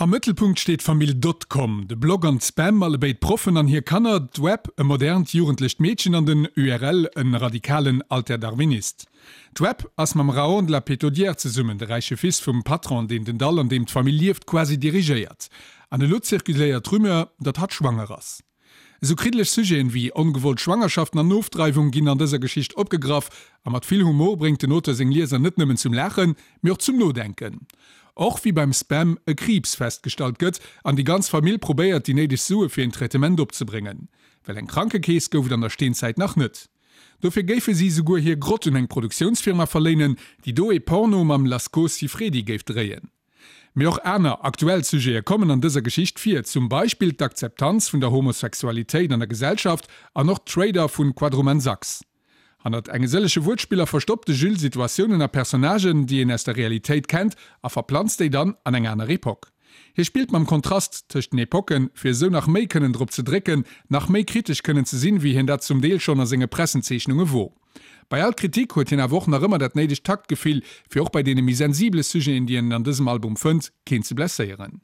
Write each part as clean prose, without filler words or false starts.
Am Mëttelpunkt steet d'Famill Dotcom, de Blog an d'Spam, allebéid Proffen an hir Kanner, d'Web, e modernt jugendlecht Meedchen an den URL, e radikalen Alterdarwinist. D'Web ass mam Raon de la Pétaudière zesummen, de räiche Fils vum Patron, deen den Dall, an deem d'Famill lieft, quasi dirigéiert. An elo zirkuléiert d'Rumeur, datt hatt schwanger ass. Esou kriddeleg Sujeten wéi ongewollt Schwangerschaften an Ofdreiwung ginn an dëser Geschicht opgegraff a mat vill Humor bréngt den Auteur seng Lieser net nëmmen zum Laachen, mee och zum Nodenken. Och wéi beim Spam e Kriibs festgestallt gëtt an déi ganz Famill probéiert déi néideg Sue fir een Traitement opzebréngen. Well eng Krankekeess gouf et an der Steenzäit nach net. Dofir géife si souguer hir Grott un eng Produktiounsfirma verléinen, déi do ee Porno mam Lasco Siffredi géif dréien. Mee och aner aktuell Sujete kommen an dëser Geschicht vir, zum Beispill d'Akzeptanz vun der Homosexualitéit an der Gesellschaft an och d'Trader vun Quadruman Sachs. Hannert enge sëllege Wuertspiller verstoppt de Jules Situatiounen a Personnagen, déi een aus der Realitéit kennt a verplanzt déi dann an eng aner Epoque. Hie spillt mam Kontrast tëscht den Epocken, fir esou nach méi kënnen drop ze drécken, nach méi kritesch kënnen ze sinn, wéi hien dat zum Deel schonn a senge Pressenzeechnunge wor. Bei all Kritik huet hien awer och nach ëmmer dat néidegt Taktgefill, fir och bei deene méi sensibele Sujeten, déi een an dësem Album fënnt, keen ze blesséieren.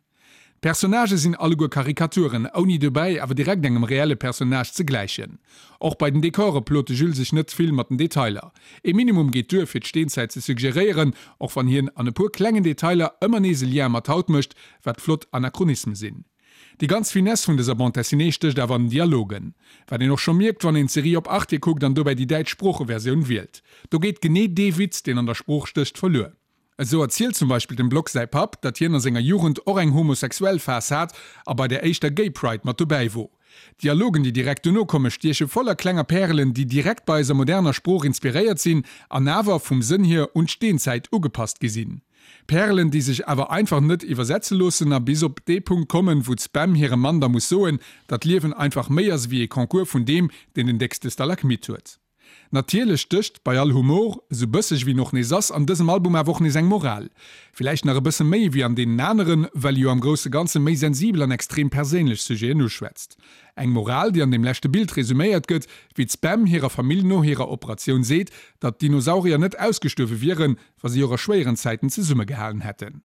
D'Personnagë sinn alleguer Karikaturen, ouni dobäi awer direkt engem reelle Personnage ze gläichen. Och bei den Dekore plot de Jules sech net vill mat den Detailer. Ee Minimum geet duer, fir d'Steenzäit ze suggeréieren, och wann hien an e puer klengen Detailer ëmmer nees e Lien mat haut mécht, wat flott Anachronisme sinn. Déi ganz Finesse vun dëser Bande dessinée stécht awer an den Dialogen. Wat een och scho mierkt, wann een d'Serie op Arte kuckt an dobäi déi däitsch Sproocheversioun wielt. Do geet genee dee Witz, deen an der Sprooch stécht, verluer. Esou erzielt zum Beispill dem Block säi Papp, datt hien a senger Jugend och eng homosexuell Phas hat a bei der éischter Gay Pride mat dobäi wor. D'Dialogen, déi direkt dono komme stieche voller klenger Pärelen, déi direkt bei eiser moderner Sprooch inspiréiert sinn an awer vum Sënn hier un d'Steenzäit ugepasst gi sinn. Pärelen, déi sech awer einfach net iwwersetze loossen a bis op dee Punkt kommen, wou d'Spam hirem Mann da muss soen, datt d'Liewen einfach méi ass ewéi ee Concours vun deem, deen den déckste Stalagmit huet. Natierlech stécht bei all Humor, esou bësseg ewéi en och nees ass, an dësem Album awer och nees eng Moral. Villäicht nach e bësse méi ewéi an deenen aneren, well e jo am grousse Ganze méi sensibel an extrem perséinlech Sujeten uschwätzt. Eng Moral, déi an deem leschte Bild resuméiert gëtt, wéi d'Spam hirer Famill no hirer Operatioun seet, datt d'Dinosaurier net ausgestuerwe wieren, wa si och a schwéieren Zäiten zesummegehalen hätten.